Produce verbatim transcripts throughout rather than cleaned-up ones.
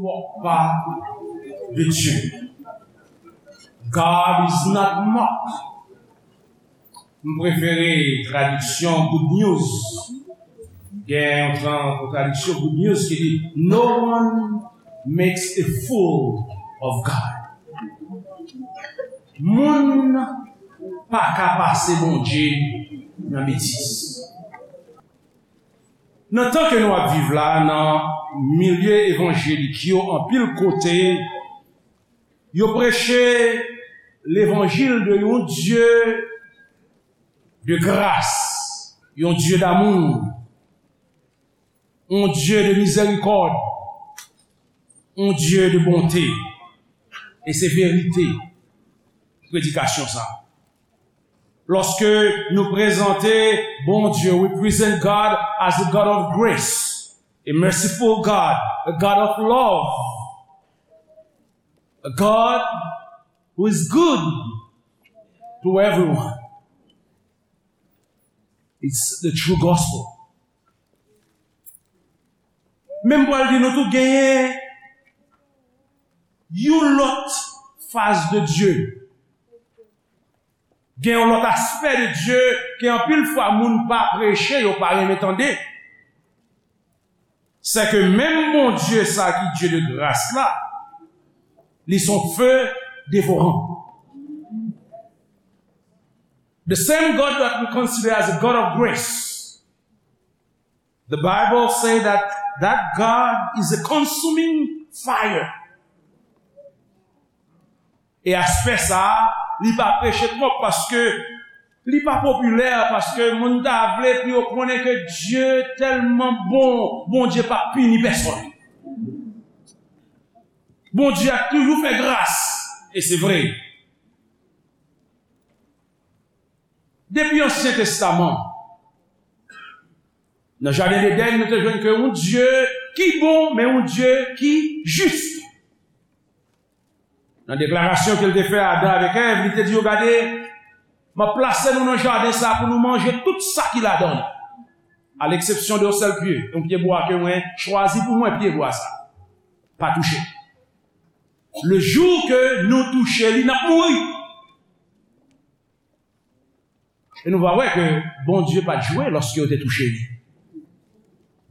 Moque pas de Dieu. God is not mocked. M prefere tradiksyon Good News. Gen yon tran-, yon tradiksyon Good News ki di, "No one makes a fool of God." Moun pa ka pase Bondye nan betiz. Nan tan ke nou ap viv la, nan milye evanjelik yo, anpil kote, yo preche levanjil de yon Dye de gras, yon Dye damou, yon Dye de mizèrikòd, yon Dye de bonte. E se verite predikasyon sa. Lòske nou prezante Bondye, we present God as a God of grace, a merciful God, a God of love, a God who is good to everyone. It's the true gospel. Men m pral di nou tou genyen yon lòt faz de Dye. Gen yon lòt aspè de Dye ke anpil fwa moun pa preche, yo pa renmen tande. Se ke menm Bondye sa ki Dye de gras la, li se yon fe devoran. The same God that we consider as a God of grace, the Bible say that that God is a consuming fire. E aspè sa a, li pa preche twòp paske li pa popilè, paske moun ta vle pou yo konnen ke Dye tèlman bon, Bondye pa pini pèsonn. Bondye ap toujou fè gras, e se vre. Depi Ansyen Testaman, nan jaden Edenn, nou te jwenn ke yon Dye ki bon, men yon Dye ki jis. Nan deklarasyon ke l te fè Adan avèk Èv, li te di yo, "Gade, m ap plase nou nan jaden sa a pou nou manje tout sa ki ladan li, à l'exception de yon sèl pye, yon pyebwa ke mwen chwazi pou mwen, pyebwa sa. Pa touche. Le jou ke nou touche li, n ap mouri." E nou va wè ke Bondye pa t jwe lòske yo te touche li.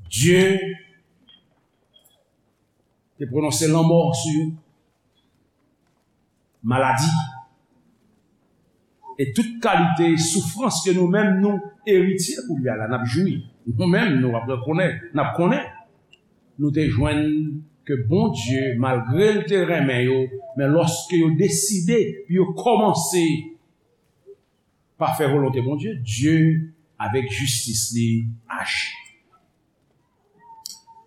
Dye te pwononse lanmò sou yo, maladi, e tout kalite soufrans ke nou menm nou eritye kounye a la, n ap jwi. Nou menm, nou ap rekonèt, n ap konnen. Nou te jwenn ke Bondye, malgre l te renmen yo, men lòske yo deside pou yo kòmanse pa fè volonte Bondye, Dye, avèk jistis li, aji.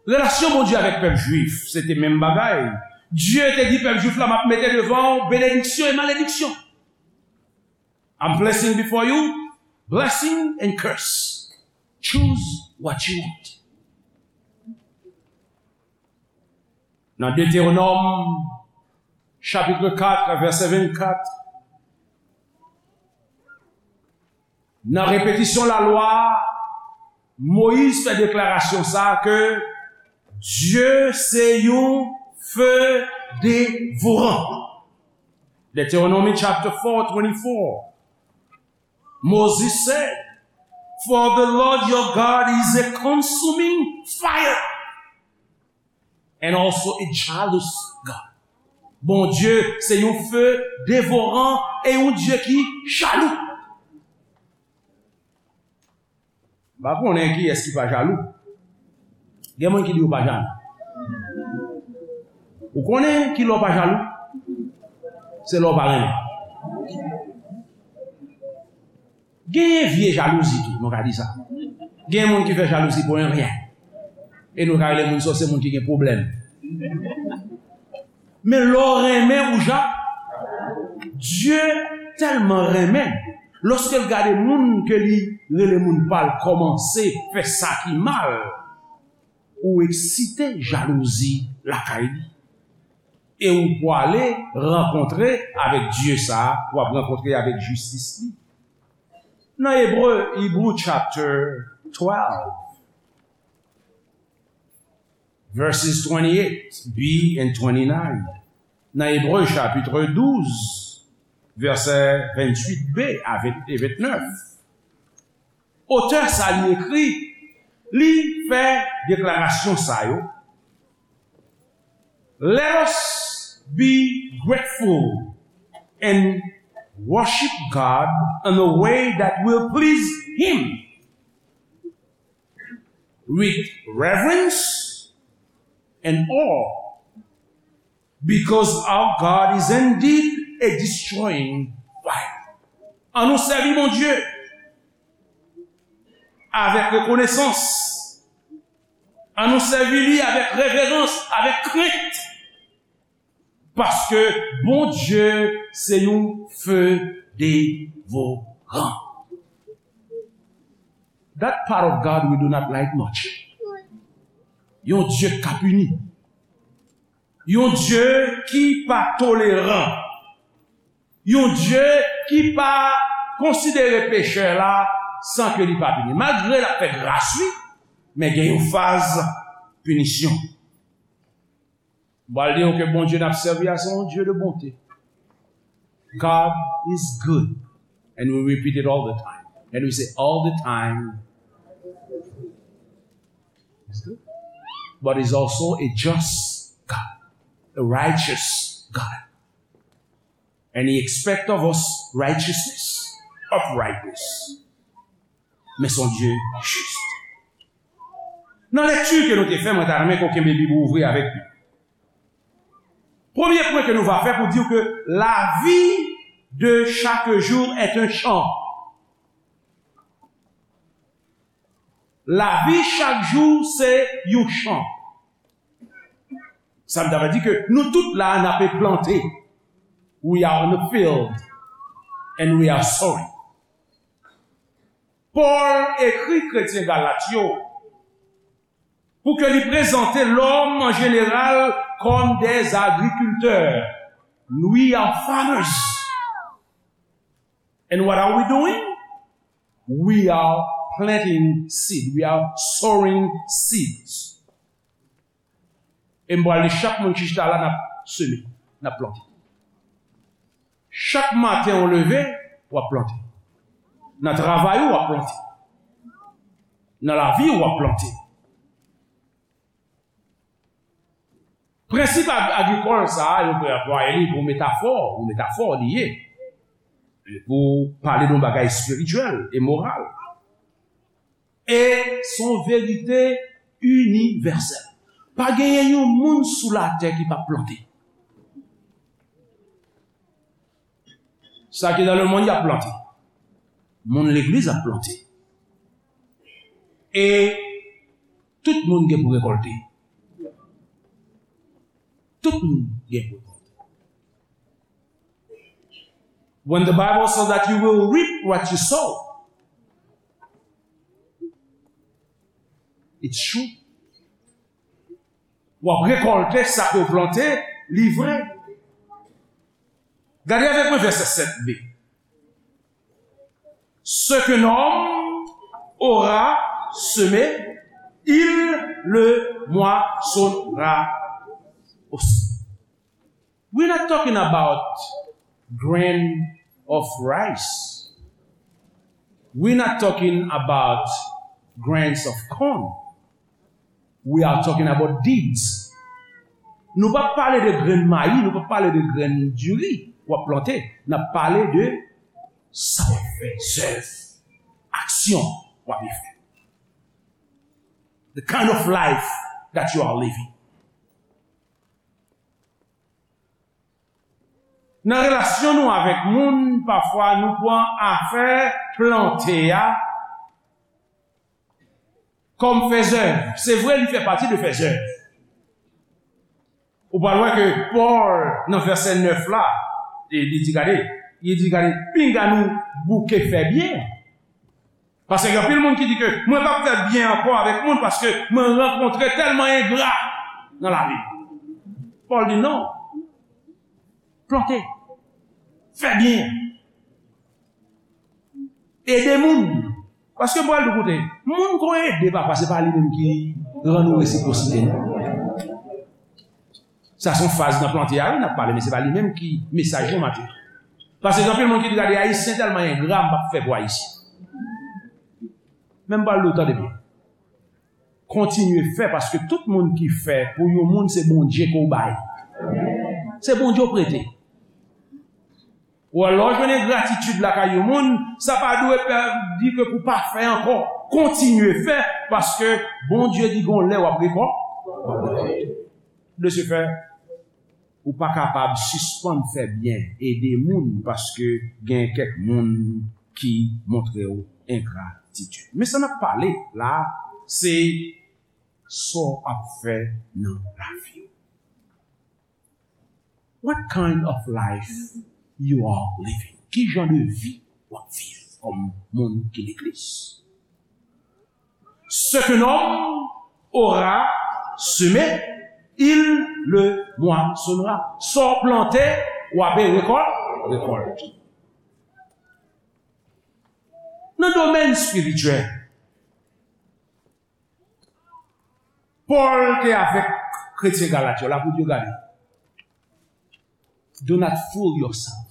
Relasyon Bondye avèk pèp jwif, se te menm bagay. Dye te di pèp jwif la, "M ap mete devan w benediksyon e malediksyon." "I'm placing before you blessing and curse. Choose what you want." Nan Detewonòm, chapit kat, vèsè vennkat, nan repetisyon lalwa, Moyiz fè deklarasyon sa a ke Dye se yon fe devoran. Deuteronomy chapter four twenty-four. Moses said, "For the Lord your God is a consuming fire and also a jealous God." Bondye se yon fe devoran e yon Dye ki jalou. M pa konnen kiyès ki pa jalou. Gen moun ki di yo pa jalou. Ou konnen ki lè w pa jalou? Se lè w pa renmen. Gen vye jalouzi tou, nou ka di sa. Gen moun ki fè jalouzi pou yon ryen. E nou ka rele moun sa yo se moun ki gen pwoblèm. Men lè w renmen, ou ja-, Dye tèlman renmen, lòske l gade moun ke li rele moun pa l kòmanse fè sa ki mal, ou eksite jalouzi lakay li. E ou pwale rankontre avèk Dye sa a, w ap rankontre avèk jistis li. Nan Ebre, Hebrew chapter twelve, verses twenty-eight b and twenty-nine. Nan Ebre chapit douz, vèsè venntuit b a venntuit e vennèf. Otè sa li ekri, li fè deklarasyon sa yo. Let us be grateful and worship God in a way that will please Him, with reverence and awe, because our God is indeed a destroying fire. An nou sèvi Bondye avèk rekonesans. An nou sèvi li avèk reverans, avèk krent. Paske Bondye se yon fe devoran. That part of God we do not like much. Yon Dye k ap pini. Yon Dye ki pa toleran. Yon Dye ki pa konsidere pechè la san ke li pa pini. Malgre l ap fè gras, wi, men gen yon faz pinisyon. M pral di nou ke Bondye n ap sèvi a se yon Dye de bonte. God is good. And we repeat it all the time. And we say all the time. He's good. But he's also a just God, a righteous God. And he expects of us righteousness, uprightness. Men se yon Dye jis. Nan lekti ke nou te fè, mwen ta renmen ke w kenbe Bib ou ouvri avèk nou. Premye pwen ke nou va fè pou di w ke la vie de chaque jour est un champ. Lavi chak jou se yon chan. Sa vle di ke nou tout la n ape plante. We are in the field and we are sowing. Pòl ekri kretyen Galat yo pou ke li prezante lòm an jeneral kòm des agriculteurs. We are farmers. And what are we doing? We are planting seed. We are sowing seeds. E m pral di chak moun ki chita la, n ap seme, n ap plante. Chak maten ou leve, w ap plante. Nan travay ou, w ap plante. Nan lavi ou, w ap plante. Prensip ag-, agrikòl sa a, yo pral anplwaye li pou metafò, yon metafò li ye. Pou pale de yon bagay espirityèl e moral. E se yon verite inivèsèl. Pa genyen yon moun sou latè ki p ap plante. Sa ki nan lemonn, y ap plante. Moun legliz ap plante. E tout moun gen pou rekòlte. Tout moun gen pou rekòlte. When the Bible says that you will reap what you sow, it's true. W ap rekòlte sa ke w plante, li vre. Gade avèk mwen vèsè sèt b. Ce qu'un homme aura semé, il le moissonnera aussi. We're not talking about grain of rice. We're not talking about grains of corn. We are talking about deeds. Nou pa pale de grenn mayi, nou pa pale de grenn diri w ap plante. N ap pale de sa w ap fè, zèv, aksyon w ap fè. The kind of life that you are living. Nan relasyon nou avèk moun, pafwa nou pran afè plante a kòm fè zèv. Se vre, li fè pati de fè zèv. Ou pral wè ke Pòl, nan vèsè nèf la, li, li di, gade, li di, gade, pinga nou bouke fè byen. Paske gen anpil moun ki di ke mwen p ap fè byen ankò avèk moun paske mwen rankontre tèlman engra nan lavi. Pòl di non. Plante. Fè byen. Ede moun. Paske Pòl di koute, moun ke w ede, papa, se pa li menm ki rann ou resipwosite, non. Sa se yon faz nan plante a, wi, n ap pale, men se pa li menm ki mesaj nou maten. Paske gen anpil moun ki di, "Gade, Ayisyen tèlman engra, m p ap fè pou Ayisyen." Men m pral di w, tande byen. Kontinye fè, paske tout moun ki fè pou yon moun, se Bondye ke w bay. Se Bondye w prete. Ou wè, lè w jwenn engratitid lakay yon moun, sa pa dwe pè-, di ke pou w pa fè ankò. Kontinye fè, paske Bondye di gon lè w ap rekò-, w ap rekòlte. De ce fait, ou pa kapab sispann fè byen, ede moun, paske gen kèk moun ki montre w engratitid. Men sa n ap pale la, se sa w ap fè nan lavi w. What kind of life you are living? Ki jan de vi w ap viv kòm moun ki legliz? Ce qu'un homme aura semé, il le moissonnera. Sa w plante, w ap rekòl-, rekòlte. Nan domèn espirityèl, Pòl te avèk kretyen Galat yo la pou di yo, gade, "Do not fool yourself."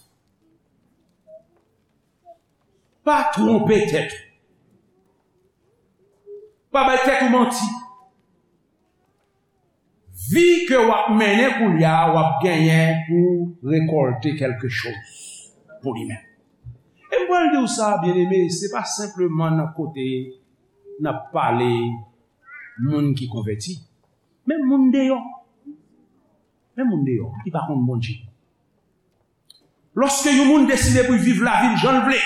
Pa twonpe tèt ou. Pa bay tèt ou manti. Vi ke w ap mennen kounye a, w ap genyen pou rekòlte kèlke choz pou li menm. E m pral di w sa, byeneme, se pa senpleman nan kote n ap pale moun ki konvèti, men moun deyò. Men moun deyò ki pa konn Bondye. Lòske yon moun deside pou l viv lavi l jan l vle,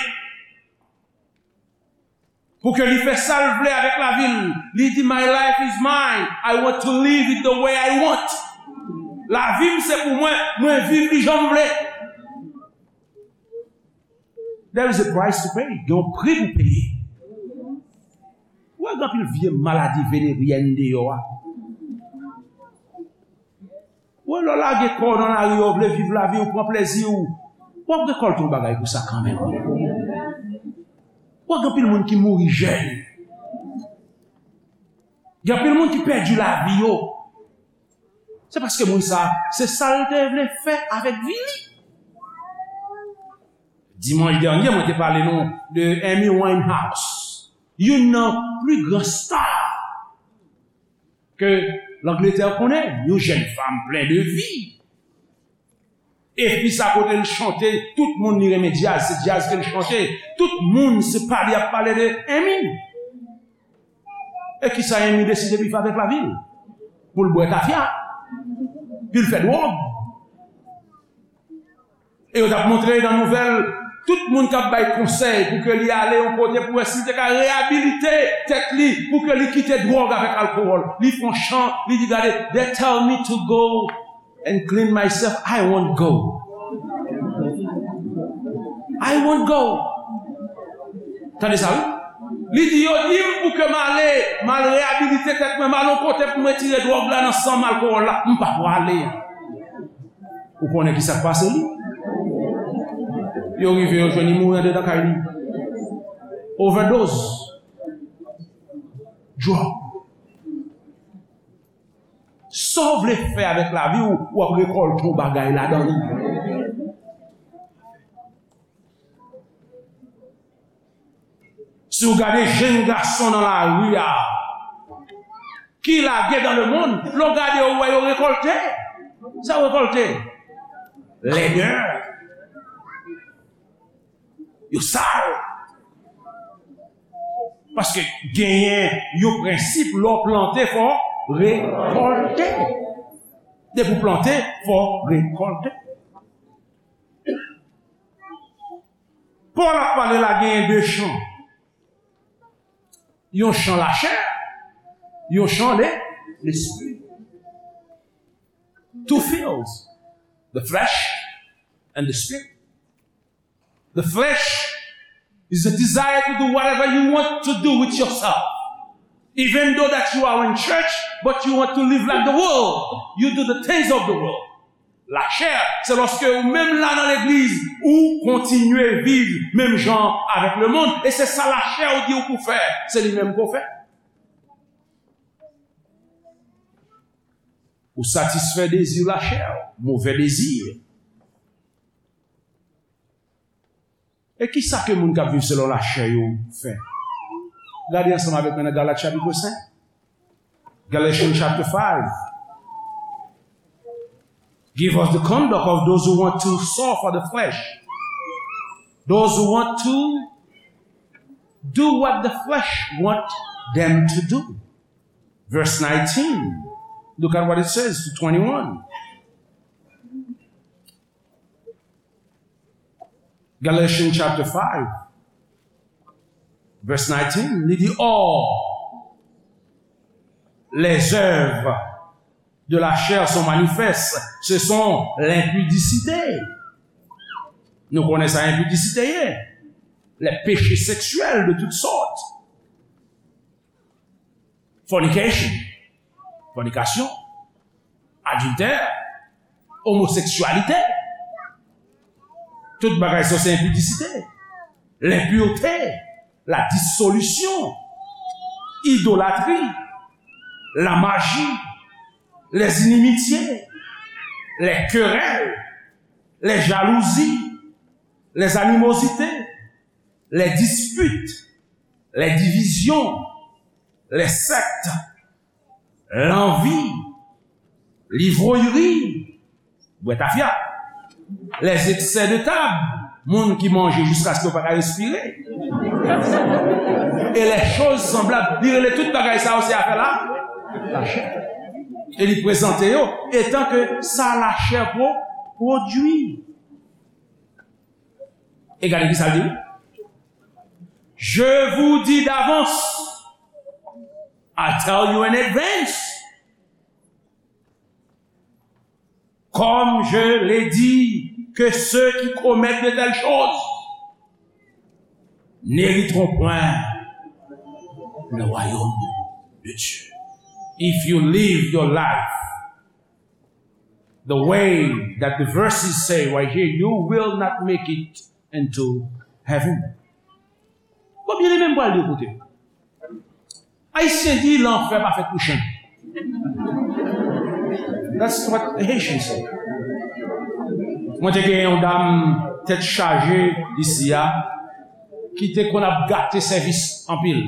pou ke li fè sa l vle avèk lavi l, li di, "My life is mine. I want to live it the way I want." Lavi m se pou mwen, mwen viv li jan m vle. There is a price to pay. Gen yon pri pou peye. Ou wè, gen anpil vye maladi veneryèn deyò a. Ou wè, lè w lage kò w nan lari a, w vle viv lavi w, pran plezi w, w ap rekòlte yon bagay pou sa kanmenm. Ou wè, gen anpil moun ki mouri jèn. Gen anpil moun ki pèdi lavi yo. Se paske moun sa, se sa l te vle fè avèk vi li. Dimanch dènye, mwen te pale nou de Amy Winehouse, youn nan pli gran star ke Langletè konnen, yon jèn fanm plen de vi. Epi sa kote l chante, tout moun li renmen djaz, se djaz ke l chante. Tout moun se pale, y ap pale de Amy. E kisa Amy deside pou l fè avèk lavi l? Pou l bwè tafya, pou l fè dwòg. E yo t ap montre nan nouvèl, tout moun k ap bay konsèy pou ke li ale yon kote pou wè si li te ka reyabilite tèt li, pou ke li kite dwòg avèk alkowòl. Li fè yon chan, li di, "Gade, they tell me to go and clean myself, I won't go. I won't go." Tande sa, wi. Li di, "Yo di m pou ke m ale, m al reyabilite tèt mwen, m al yon kote pou m retire dwòg la nan san m, alkowòl la. M pa pwale." Ou konnen ki sa k pase li? Yo rive, yo jwenn li mouri andedan kay li. Overdose. Dwòg. Sa w vle fè avèk lavi w, w ap rekòlte yon bagay ladan li. Si w gade jèn gason nan lari a, ki lage dans le monde, lè w gade yo, w wè yo rekòlte. Sa yo rekòlte? Lèdè. Yo sal. Paske genyen yon prensip, lè w plante, fò w rekòlte. Depi w plante, fò w rekòlte. Pòl ap pale la, genyen de chan. Yon chan lachè, yon chan le, lespri. Two fields, the flesh and the spirit. The flesh is a desire to do whatever you want to do with yourself. Even though that you are in church, but you want to live like the world. You do the things of the world. Lachè, se lòske ou menm la nan legliz, ou kontinye viv menm jan avèk lemonn, e se sa lachè ou di ou pou fè, se li menm ke w fè. Ou satisfè dezi lachè, movè dezi. E ki sa ke moun k ap viv selon lachè yo fè? Gade ansanm avèk mwen nan Galat chapit senk. Galatians chapter five. Give us the conduct of those who want to sow for the flesh. Those who want to do what the flesh want them to do. Verse nineteen. Look at what it says to twenty-one. Galatians chapter five, verse nineteen, li di, or, les œuvres de la chair sont manifestes, ce sont l'impudicité. Nou konnen sa enpidisite ye. Les péchés sexuels de toutes sortes. Fornication, fònikasyon, adiltè, omoseksyalite. Tout bagay sa se enpidisite, lenpirte, la disolisyon, idolatri, la maji, les inimitiés, les querelles, les jalousies, les animosités, les disputes, les divisions, les sectes, lanvi, livroyri, bwè tafya, les excès de table, moun ki manje jiskaske yo pa ka respire, et les choses semblables. Li rele tout bagay sa yo se afè la, lachè. E li prezante yo etan ke sa lachè pwo-, pwodui. E gade ki sa l di. Je vous dis d'avance, I tell you in advance, comme je l'ai dit, que ceux qui commettent de telles choses n'hériteront point le royaume de Dieu. If you live your life the way that the verses say right here, you will not make it into heaven. Bon, byeneme, m pral di w, koute. Ayisyen di, lanfè pa fèt pou chen. That's what Haitians say. Mwen te gen yon dam tèt chaje isi a, ki te konn ap gate sèvis anpil.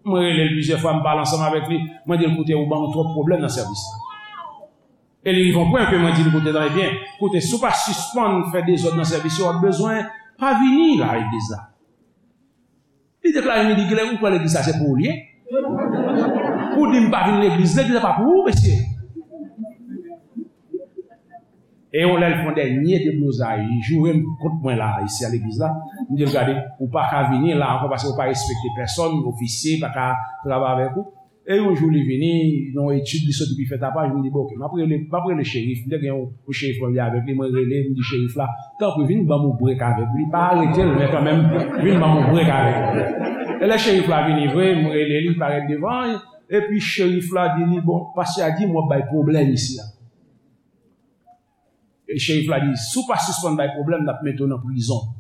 Mwen rele l plizyè fwa, m pale ansanm avèk li, mwen di l, koute, ou ban m twòp pwoblèm nan sèvis la. E li rive yon pwen ke mwen di l, koute, tande byen, koute, si w pa sispann fè dezòd nan sèvis yo, w ap bezwen pa vini la legliz la. Li deklare m, li di, kilè ou kwè legliz la se pou ou li ye? Ou di m pa vin legliz, legliz la pa pou ou, mesye. E yon lè l fè yon dènye deblozay, li joure m kont mwen la, isi a legliz la. M di l, gade, ou pa ka vini la ankò paske ou pa respekte pèsòn, ofisye pa ka travay avèk ou. E yon jou li vini, nan yon etid, li soti pi fè tapaj, m di, bon, oke, m ap rele, m ap rele cherif. M te gen yon, yon cherif mwen avèk li, mwen rele, m di cherif la, tanpri vin ban m yon brek avèk li. Pa arete l, men kanmenm, vin ban m yon brek avèk li. E lè cherif la vini vre, m rele li, li parèt devan, epi cherif la di li, bon, pastè a di m w ap bay pwoblèm isi a. E cherif la di, si w pa sispann bay pwoblèm, n ap mete w nan prizon.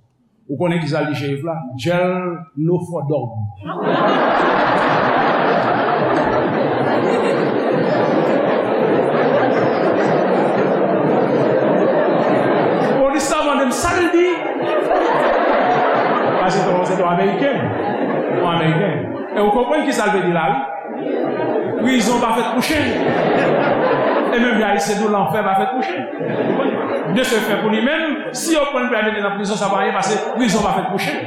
Ou konnen kisa l di cherif la? Jail no for dog. Polis la mande m sa l di. Paske se yon Ameriken. Yon Ameriken. E ou konprann kisa l vle di la, wi? Prizon pa fèt pou chen. E menm jan Ayisyen di w, lanfè pa fèt pou chen. De ce fait, pou li menm, si yo pran l pou y al mete nan prizon, sa pa anyen, paske prizon pa fèt pou chen.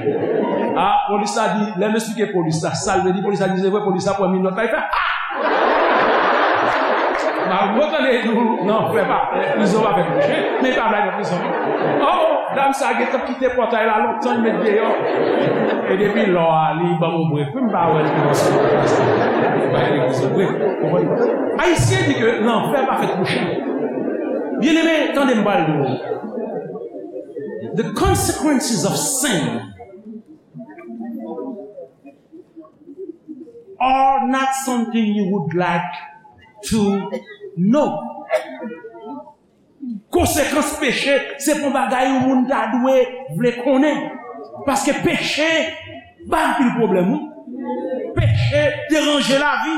A, polis la di, lè m esplike polis la sa l vle di, polis la di, se vre, polis la pran minòt la, li fè, a! Malgre w tande di w, lanfè pa, prizon pa fèt pou chen, men li pa vle al nan prizon. Oh, dam sa gentan kite pòtay la lontan, li met deyò. E depi lò a, li ban m yon brek. Wi, m pa wè l kòmanse bay legliz yon brek. Konprann? Ayisyen di ke lanfè pa fèt pou chen. Byeneme, tande m pral di w. The consequences of sin are not something you would like to know. Konsekans peche, se pa yon bagay yon moun ta dwe vle konnen. Paske peche ba anpil pwoblèm, wi. Peche deranje lavi.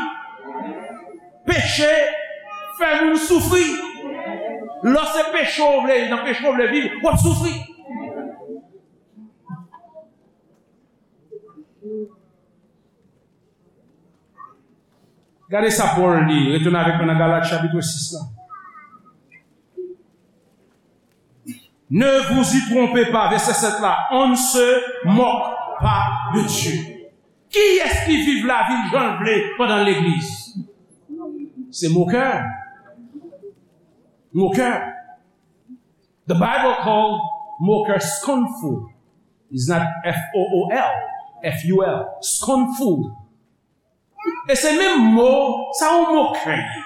Peche Fè moun soufri. Lè se peche w vle, nan peche w vle viv, w ap soufri. Gade sa Pòl di, retounen avèk mwen nan Galat chapit sis la. Ne vous y trompez pas, vèsè sèt la, on ne se moque pas de Dieu. Kiyès ki viv lavi l jan l vle pandan l legliz? Se mokè. Mokè. The Bible called mokè scornful. It's not F O O L, F U L. Scornful. E se menm mo, sa yon mokè ye.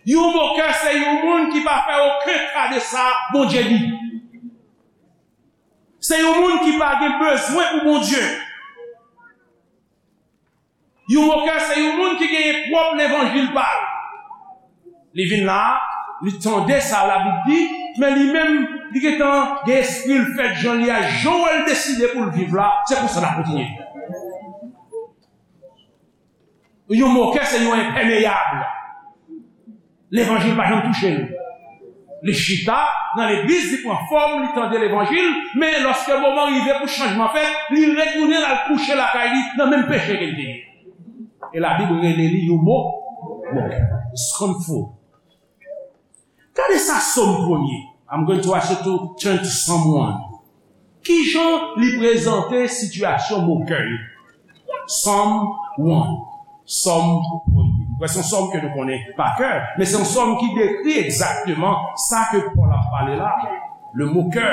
Yon mokè se yon moun ki pa fè okenn ka de sa Bondye di. Se yon moun ki pa gen bezwen pou Bondye. Yon mokè se yon moun ki genyen pwòp levanjil pa l. Li vin la, li tande sa Labib di, men li menm, li gentan gen espri l fèt jan li a, jan w wè l deside pou l viv la, se konsa l ap kontinye. Yon mokè se yon enpèmeyab. Levanjil pa janm touche l. Li chita nan legliz, li pran fòm, li tande levanjil, men lòske moman rive pou chanjman fèt, li retounen al kouche lakay li nan menm peche ke l te ye. E Labib rele li yon mo, mokè. Scornful. Gade sa Sòm premye. I'm going to ask you to turn to Psalm one. Kijan li prezante sitiyasyon mokè yo? Sòm one. Sòm premye. Mwen, se yon sòm ke nou konnen pa kè, men se yon sòm ki dekri egzakteman sa ke Pòl ap pale la. Le mokè.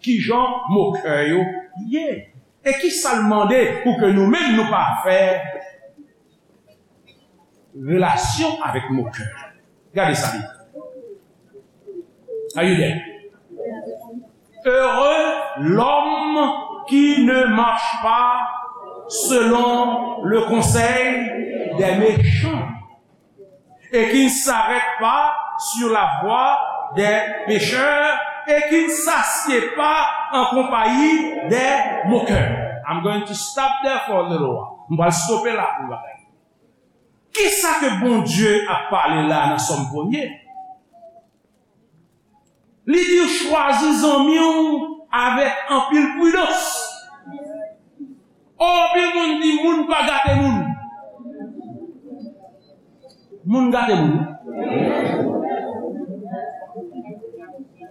Kijan mokè yo ye? E kisa l mande pou ke nou menm nou pa fè relasyon avèk mokè? Gade sa li. Are you there? Heureux l'homme qui ne marche pas selon le conseil des méchants et qui ne s'arrête pas sur la voie des pécheurs et qui ne s'assied pas en compagnie des moqueurs. I'm going to stop there for a little while. M pral stope la pou yon bagay. Kisa ke Bondye ap pale la nan Sòm premye? Li di w chwazi zanmi w avèk anpil pridans. O, anpil moun di moun pa gate moun. Moun gate moun.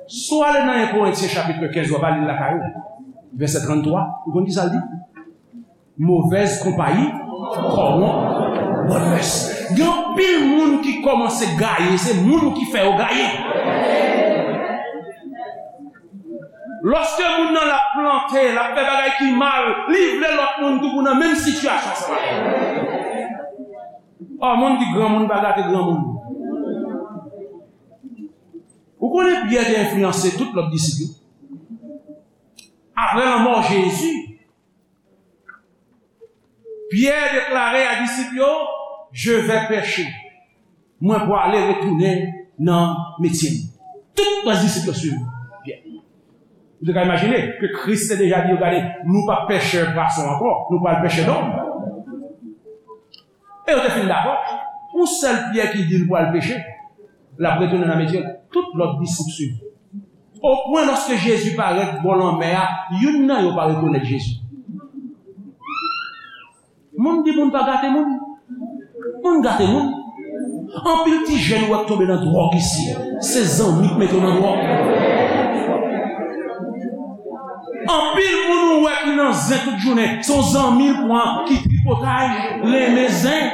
Si w ale nan en Korentyen chapit kenz, w ap li l lakay ou, vèsè tranntwa, ou konn kisa l di? Mauvaise compagnie corrompt bonne mœurs. Gen anpil moun ki kòmanse gaye, se moun ki fè yo gaye. Lòske moun nan l ap plante, l ap fè bagay ki mal, li vle lòt moun tou pou nan menm sitiyasyon sa. O, moun di granmoun pa gate granmoun. Ou konnen Pyè te enfliyanse tout lòt disip yo. Apre lanmò Jezi, Pyè deklare a disip yo, je vais pêcher. Mwen pwale retounen nan metye m. Tout rès disip yo swiv Pyè. Ou te ka imajine ke Kris te deja di yo, gade, nou pa pechè pwason ankò, nou pral pechè dòm. E yo te fin dakò. Yon sèl Pyè ki di l pral peche, l ap retounen nan metye l. Tout lòt disip swiv. O pwen lòske Jezi parèt bò lanmè a, youn nan yo pa rekonèt Jezi. Moun di moun pa gate moun. Moun gate moun. Anpil ti jèn ou wè k tonbe nan dwòg isi. Se zanmi k mete w nan dwòg. Anpil moun ou wè ki nan zen tout jounen, se yon zanmi l pran ki tripotay, renmen zen.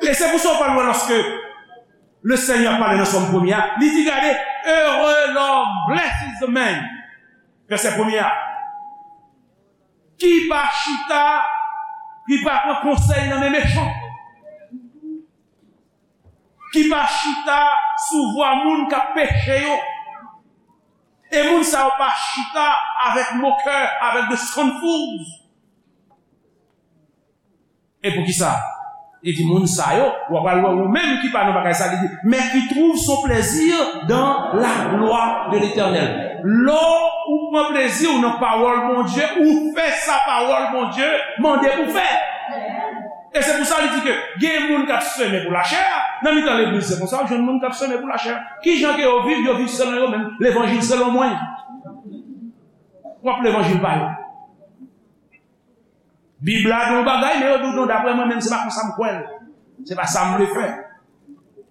E se pou sa w pral wè lòske Lesenyè pale nan Sòm premye a, li di, gade, heureux l'homme, blessed is the man. Vèsè premye a. Ki pa chita, ki pa pran konsèy nan men mechan. Ki pa chita sou vwa moun k ap peche yo. E moun sa yo pa chita avèk mokè, avèk the scornfuls. E poukisa? Li di, moun sa yo, w ap pral wè ou menm ki pa nan bagay sa, li di, mais qui trouve son plaisir dans la loi de l'Éternel. Lè w Ou pran plezi w nan pawòl Bondye, ou fè sa pawòl Bondye mande pou fè. E se pou sa li di ke gen moun k ap semen pou lachè a, nan mitan legliz se konsa, w jwenn moun k ap semen pou lachè a. Kijan ke yo viv? Yo viv selon yo menm, levanjil selon mwen. W ap levanjil pa yo. Bib la di yon bagay, men yo di w non, daprè mwen menm, se pa konsa m kwè l. Se pa sa m vle fè.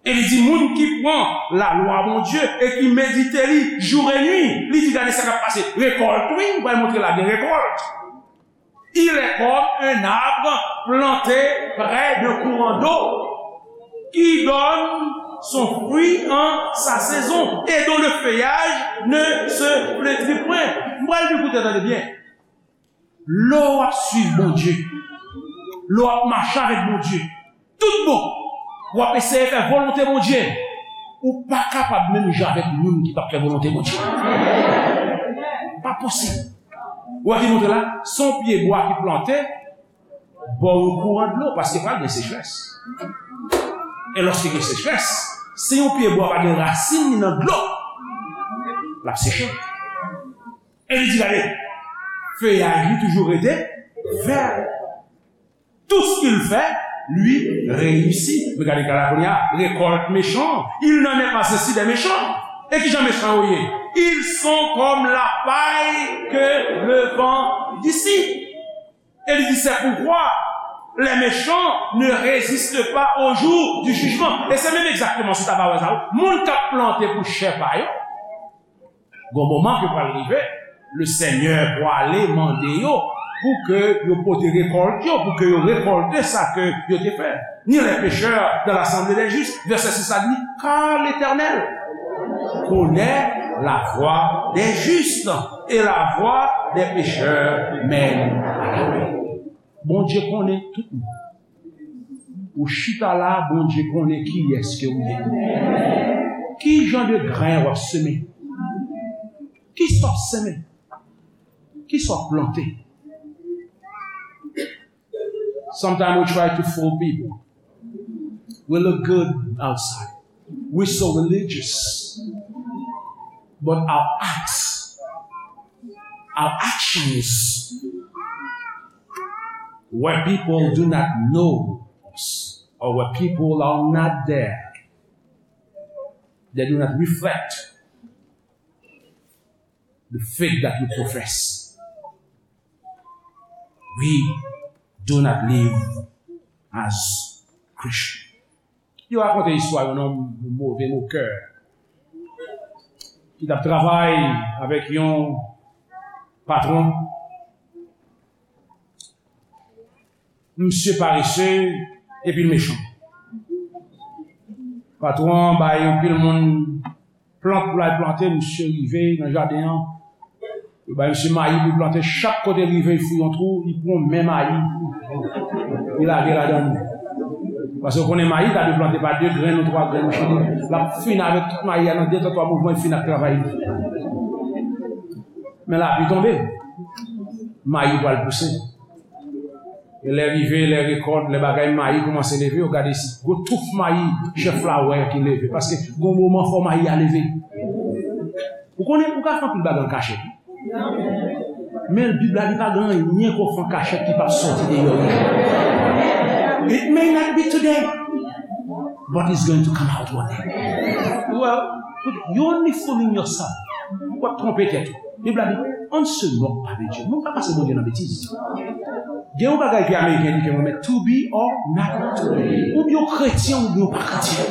E li di, moun ki pran lalwa Bondye e ki medite li jou e nwi, li di, gade sa k ap pase. Rekòlt, wi, m pral montre la gen rekòlt. Il est comme un arbre planté près d'un courant d'eau qui donne son fruit en sa saison et dont le feuillage ne se flétrit point. M pral di koute, tande byen. Lè w ap swiv Bondye, lè w ap mache avèk Bondye, tout bon, w ap eseye fè volonte Bondye, ou pa kapab menm jan avèk moun ki p ap fè volonte Bondye. Pa posib. Ou wè ki montre la, se yon pye bwa ki plante bò yon kouran dlo, paske pral gen sechrès. E lòske gen sechrès, si yon pye bwa pa gen rasin li nan dlo, l ap seche. E li di, gade, feyaj li toujou rete vè. Tout ce qu'il fait lui réussit. Regardez, gade la kounye a, récolte méchant, il n'en est pas ainsi des méchants. E kijan mechan yo ye? Ils sont comme la paille que le vent dissipe. E li di, c'est pourquoi les méchants ne résistent pas au jour du jugement. E se menm egzakteman sa w ta va wè sa, wi. Moun k ap plante pou chè pa yo, gon moman ke pral rive, le Senyè pwale mande yo pou ke yo pote rekòlt yo, pou ke yo rekòlte sa ke yo te fè. Ni les pécheurs dans l'assemblée des justes. Vèsè sis la di, car l'Éternel connaît la voie des justes et la voie des pécheurs mène à la mort. Bondye konnen tout moun. Ou chita la, Bondye konnen kiyès ke w ye. Ki jan de grenn w ap semen? Kisa w ap semen? Kisa w ap plante? Sometimes we try to fool people. We look good outside. We so religious. But our acts, our actions, where people do not know us, or where people are not there, they do not reflect the faith that we profess. We do not live as Christian. Yo rakonte istwa yon nonm, yon move mokè, ki t ap travay avèk yon patwon. Misye parese epi l mechan. Patwon an bay yon pil moun plant pou l al plante, misye rive nan jaden an. Yo bay misye mayi pou l plante, chak kote l rive, l fouye yon twou, li pran men mayi. Li lage ladan l. Paske w konnen mayi ta dwe plante pa de grenn ou twa grenn, misye di, l ap fin avèk tout mayi a nan de tan twa mouvman, li fin ak travay li. Men lapli tonbe. Mayi pral pouse. E lè rive, lè rekòt, lè bagay mayi kòmanse leve, yo gade si gwo touf mayi chèf la wè ki leve. Paske gon moman fò mayi a leve. Ou konnen, ou ka fè anpil bagay an kachèt. Men Bib la di pa gen anyen ke w fè an kachèt ki p ap sòti deyò yon jou. It may not be today, but it's going to come out one day. Well, you only fooling yourself. W ap twonpe tèt ou. Bib la di, on ne se moque pas de Dieu. Nou pa pase Bondye nan betiz. Gen yon bagay ke Ameriken di ke mwen met, to be or not to be. Oubyen w kretyen, oubyen w pa kretyen.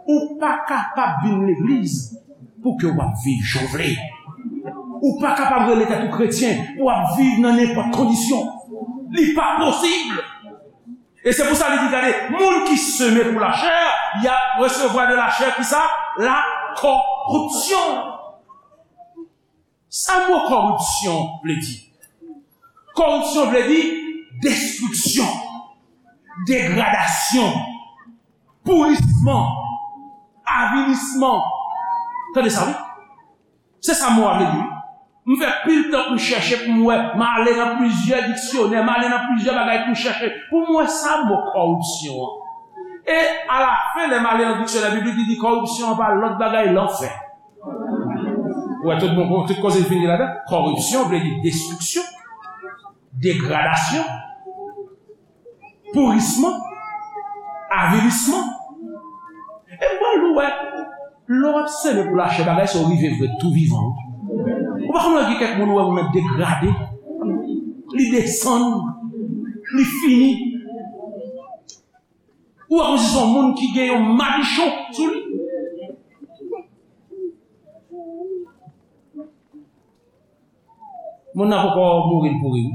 Ou pa kapab vin legliz pou ke w ap viv jan w vle. Ou pa kapab rele tèt ou kretyen pou w ap viv nan nenpòt kondisyon. Li pa posib. E se pou sa li di, gade, moun ki semen pou lachè, y ap resevwa de lachè kisa? Lakoripsyon. Sa mo kòripsyon vle di? Kòripsyon vle di destriksyon, degradasyon, pourisman, avilisman. Tande sa, wi. Se sa mo a vle di, wi. M fè pil tan pou m chèche, pou m wè, m ale nan plizyè diksyonè, m ale nan plizyè bagay pou m chèche, pou m wè sa mo kòripsyon an. E alafen, lè m ale nan diksyonè biblik, li di kòripsyon an pa lòt bagay, lanfè. Ou wè tout bon, tout koze l fin gen ladan. Kòripsyon vle di destriksyon, degradasyon, pourisman, avilisman. E m pral di w, wè, lè w ap seme pou lachè, bagay sa yo rive vre tou vivan. Ou pa konprann gen kèk moun ou wè moun nan degrade, li desann, li fini. Ou wè kòmsi se yon moun ki gen yon madichon sou li. Moun nan poko mouri, l pouri wi.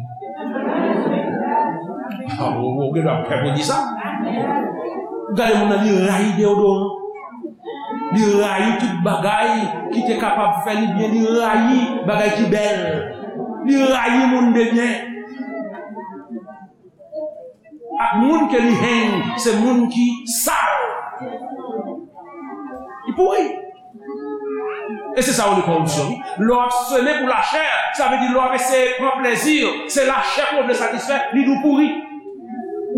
Ah, ou, ou gen dwa pè pou di sa. Ou gade moun nan, li rayi deyodoran. Li rayi tout bagay ki te kapab fè li byen. Li rayi bagay ki bèl. Li rayi moun de byen. Ak moun ke li hang, se moun ki sal. Li pouri. E se sa yo rele kòripsyon, wi. Lè w ap seme pou lachè, sa vle di lè w ap eseye pran plezi, se lachè ke w vle satisfè, li di w pouri.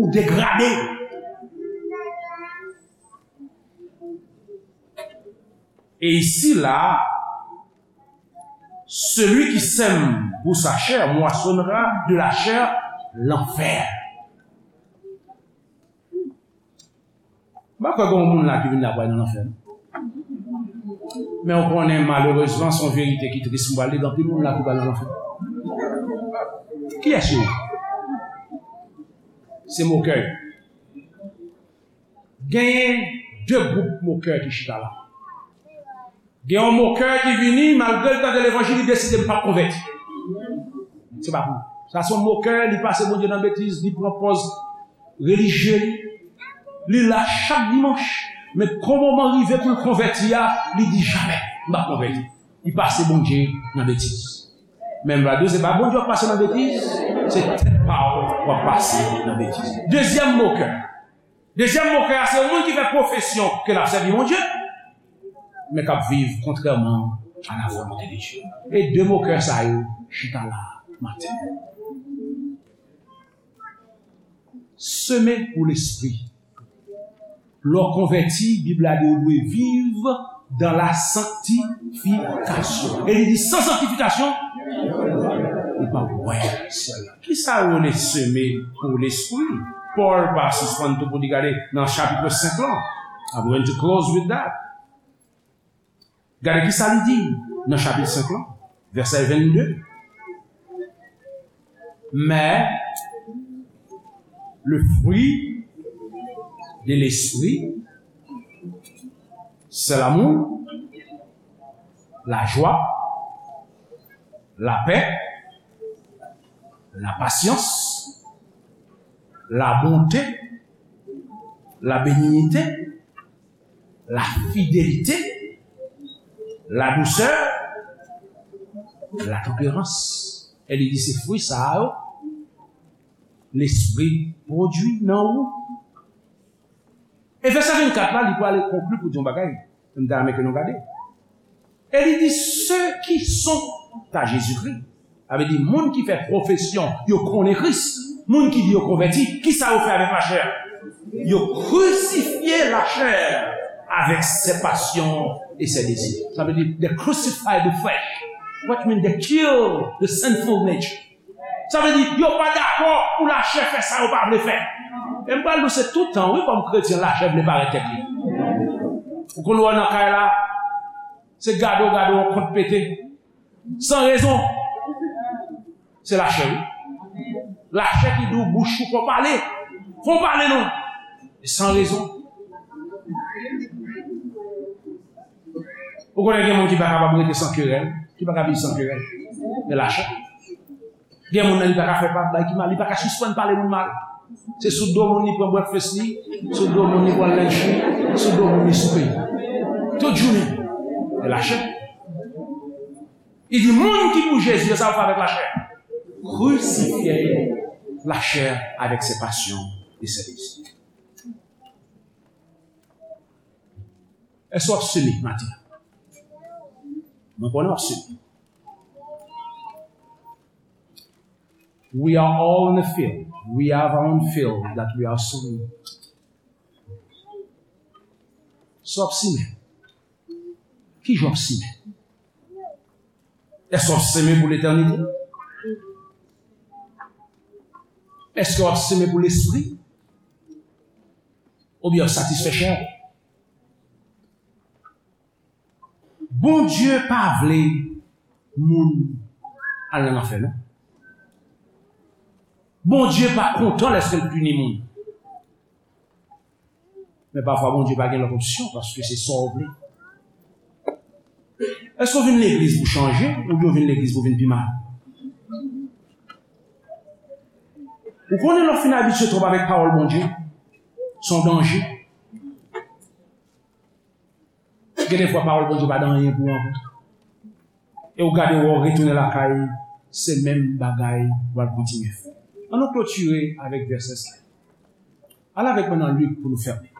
Ou degrade. Et ici, là, celui qui sème pour sa chair moissonnera de la chair l'enfer. M pa kwè gen yon moun la ki vin la pou al nan lanfè, non. Men w konnen, malerezman, se yon verite ki tris, m pral di, gen anpil moun la ki pral nan lanfè. Kiyès yo ye? Se mokè yo. Genyen de gwoup mokè ki chita la. Gen yon mokè ki vini, malgre l tande levanjil, li deside l p ap konvèti. Se pa pou li. Sa se yon mokè, li pase Bondye nan betiz, li pran pòz relijye li. Li la chak dimanch, men kon moman rive pou l konvèti a, li di, jamè, m p ap konvèti. Li pase Bondye nan betiz. Men m va di w, se pa Bondye w ap pase nan betiz, se tèt pa w w ap pase nan betiz. Dezyèm mokè. Dezyèm mokè a, se yon moun ki fè pwofesyon ke l ap sèvi Bondye, men k ap viv kontrèman a la volonte de Dye. E de mokè sa yo chita la maten. Seme pou lespri. Lè w konvèti, Bib la di w dwe viv dans la sanctification. E li di, san sanktifikasyon, ou p ap wè syèl la. Kisa yo rele seme pou lespri? Pòl pa sispann tou pou li gade nan chapit senk lan. I'm going to close with that. Gade kisa li di nan chapit senk lan, vèsè vennde. Mais le fruit de l'esprit, c'est l'amour, la joie, la paix, la patience, la bonté, la bénignité, la fidélité, la douceur, la tempérance. E li di se fwi sa a yo Lespri pwodui nan ou. E vèsè vennkat la, li prale konkli pou di yon bagay. M ta renmen ke nou gade. E li di, ceux qui sont à Jésus-Christ. Sa vle di, moun ki fè pwofesyon, yo konnen Kris. Moun ki di yo konvèti, kisa yo fè avèk lachè? Yo krisifye lachè avec ses passions et ses désirs. Sa vle di, they crucify the flesh. What mean they kill the sinful nature? Sa vle di, yo pa dakò pou lachè fè sa yo pa vle fè. E m pral di w, se tout tan, wi, kòm kretyen, lachè vle parèt tèt li. Ou konn wè nan kay la, se gade w gade w, yon kont pete. San rezon. Se lachè, wi. Lachè ki di w bouch ou fò pale. Fò pale non. E san rezon. Ou konnen gen moun ki pa kapab rete san kerèl, ki pa ka viv san kerèl. E lachè. Gen moun nan li pa ka fè pa bay ki mal, li pa ka sispann pale moun mal. Se sou do moun li pran breakfast li, sou do moun li pran lunch li, sou do moun li soupe. Tout jounen. E lachè. Li di moun ki pou Jezi, sa yo fè avèk lachè. Crucifiez la chair avec ses passions et ses désirs. Èske w ap seme maten an? Mwen konnen w ap seme. We are all in the field. We have our own field that we are sowing. Èske w ap seme? Ki jan w ap seme? Èske w ap seme pou letènite? Èske w ap seme pou lespri? Oubyen w ap satisfè chè w? Bondye pa vle moun al nan lanfè, non. Bondye pa kontan lèske l pini moun. Men pafwa Bondye pa gen lòt opsyon, paske se sa w vle. Èske w vin legliz pou chanje, oubyen w vin legliz pou vin pi mal? Ou konnen lè w fin abitye twòp avèk pawòl Bondye, se yon danje. Gen de fwa pawòl Bondye pa gen anyen pou ou ankò. E w gade wè w retounen lakay, se menm bagay w al kontinye fè. Ann nou klotire avèk vèsè sa. Al avèk mwen nan Lik pou nou fèmen.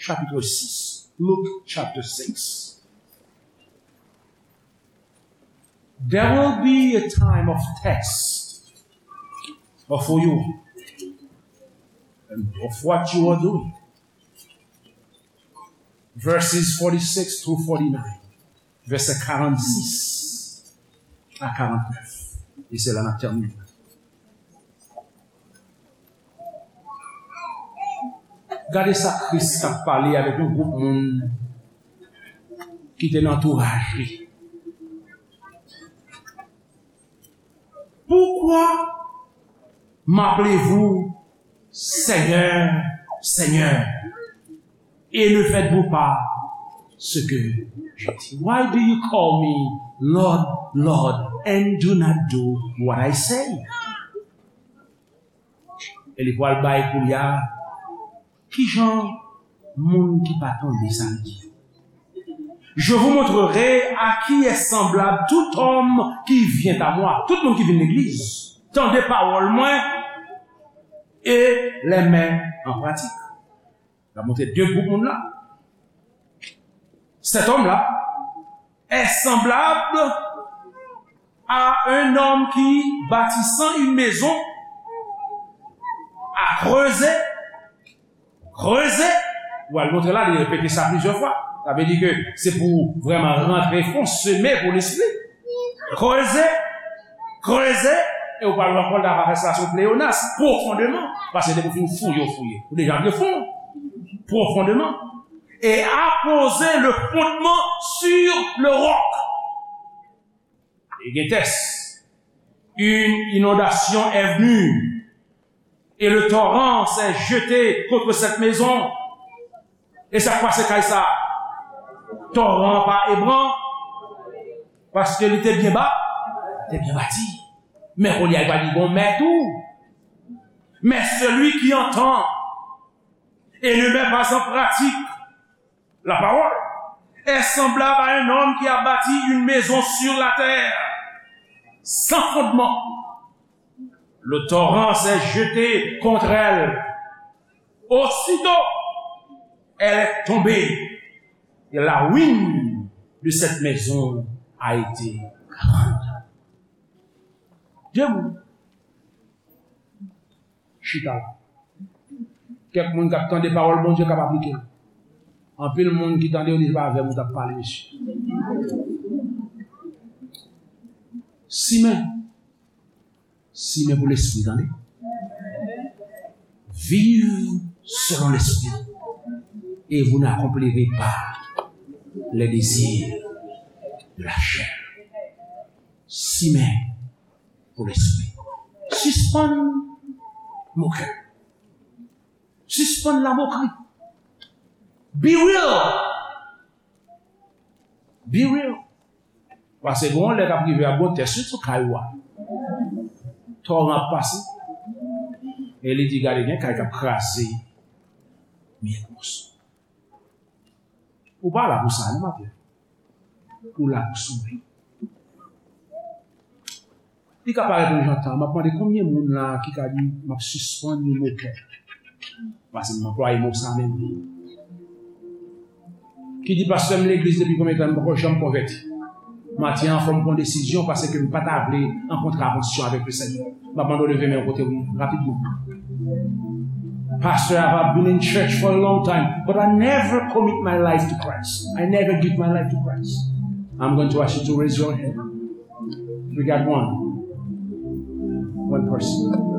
Chapit sis. Luke chapter six. There will be a time of test for you and of what you are doing. Verses forty-six through forty-nine. Vèsè karannsis a karannèf. E se la n ap tèmine. Gade sa Kris t ap pale avèk yon gwoup moun ki te nan antouraj li. Pourquoi m'appelez-vous Seigneur, Seigneur, et ne faites-vous pas ce que je dis? Why do you call me Lord, Lord, and do not do what I say? E li pral bay koulye a, kijan moun ki pa tande sa l di yo. Je vous montrerai à qui est semblable tout homme qui vient à moi. Tout moun ki vin legliz, tande pawòl mwen e les met en pratique. L ap montre de gwoup moun la. Cet homme-là est semblable à un homme qui, bâtissant une maison, a creusé, creusé, ou al montre la, li repete sa plizyè fwa. Sa vle di ke se pou vrèman rantre fon, seme pou lespri. Creusé, creusé, e ou pral wè ankò l ta fè sa sou pleyonas, profondément. Paske depi w fin fouye, w fouye. Ou deja vle fon. Profondément. Et a posé le fondement sur le roc. E gen tès. Une inondation est venue, et le torrent s'est jeté contre cette maison. E sa k pase kay sa? Toran pa ebran, paske li te byen ba, te byen bati. Men kounye a, li pa gen yon mèt tou. Mais celui qui entend et ne met pas en pratique la parole est semblable à un homme qui a bâti une maison sur la terre, sans fondement. Le torrent s'est jeté contre elle. Aussitôt, elle est tombée, et la ruine de cette maison a été grande. Debout. Chita la. Kèk moun k ap tande pawòl Bondye k ap aplike l. Anpil moun ki tande yo di se pa avè m ou t ap pale, mesye. Simen. Simen pou lespri, tande. Viv selon l'esprit, et vous n'accomplirez pas les désirs de la chair. Simen pou lespri. Sispann moke. Sispann lamokri. Be real. Be real. Paske gen yon lè k ap rive a, gon tès wi sou kay ou a. Toran ap pase. E li di, gade, gen kay k ap kraze. Miyèt moso. Ou pa la pou sa, non, maten. Ou la pou sove. Li ka parèt yon jan tan. M ap mande konbyen moun la ki ka di, "M ap sispann yon mokè." Paske m anplwaye mo sa menm. Ki di, "Pastè, m legliz depi konbyen tan, m poko janm konvèti." Maten an, fò m pran desizyon paske m pa ta vle an kontravansyon avèk Lesenyè. M ap mande w leve men w kote w ye, rapidman. Pastor, I've been in church for a long time, but I never commit my life to Christ. I never give my life to Christ. I'm going to ask you to raise your hand. We got one. One person.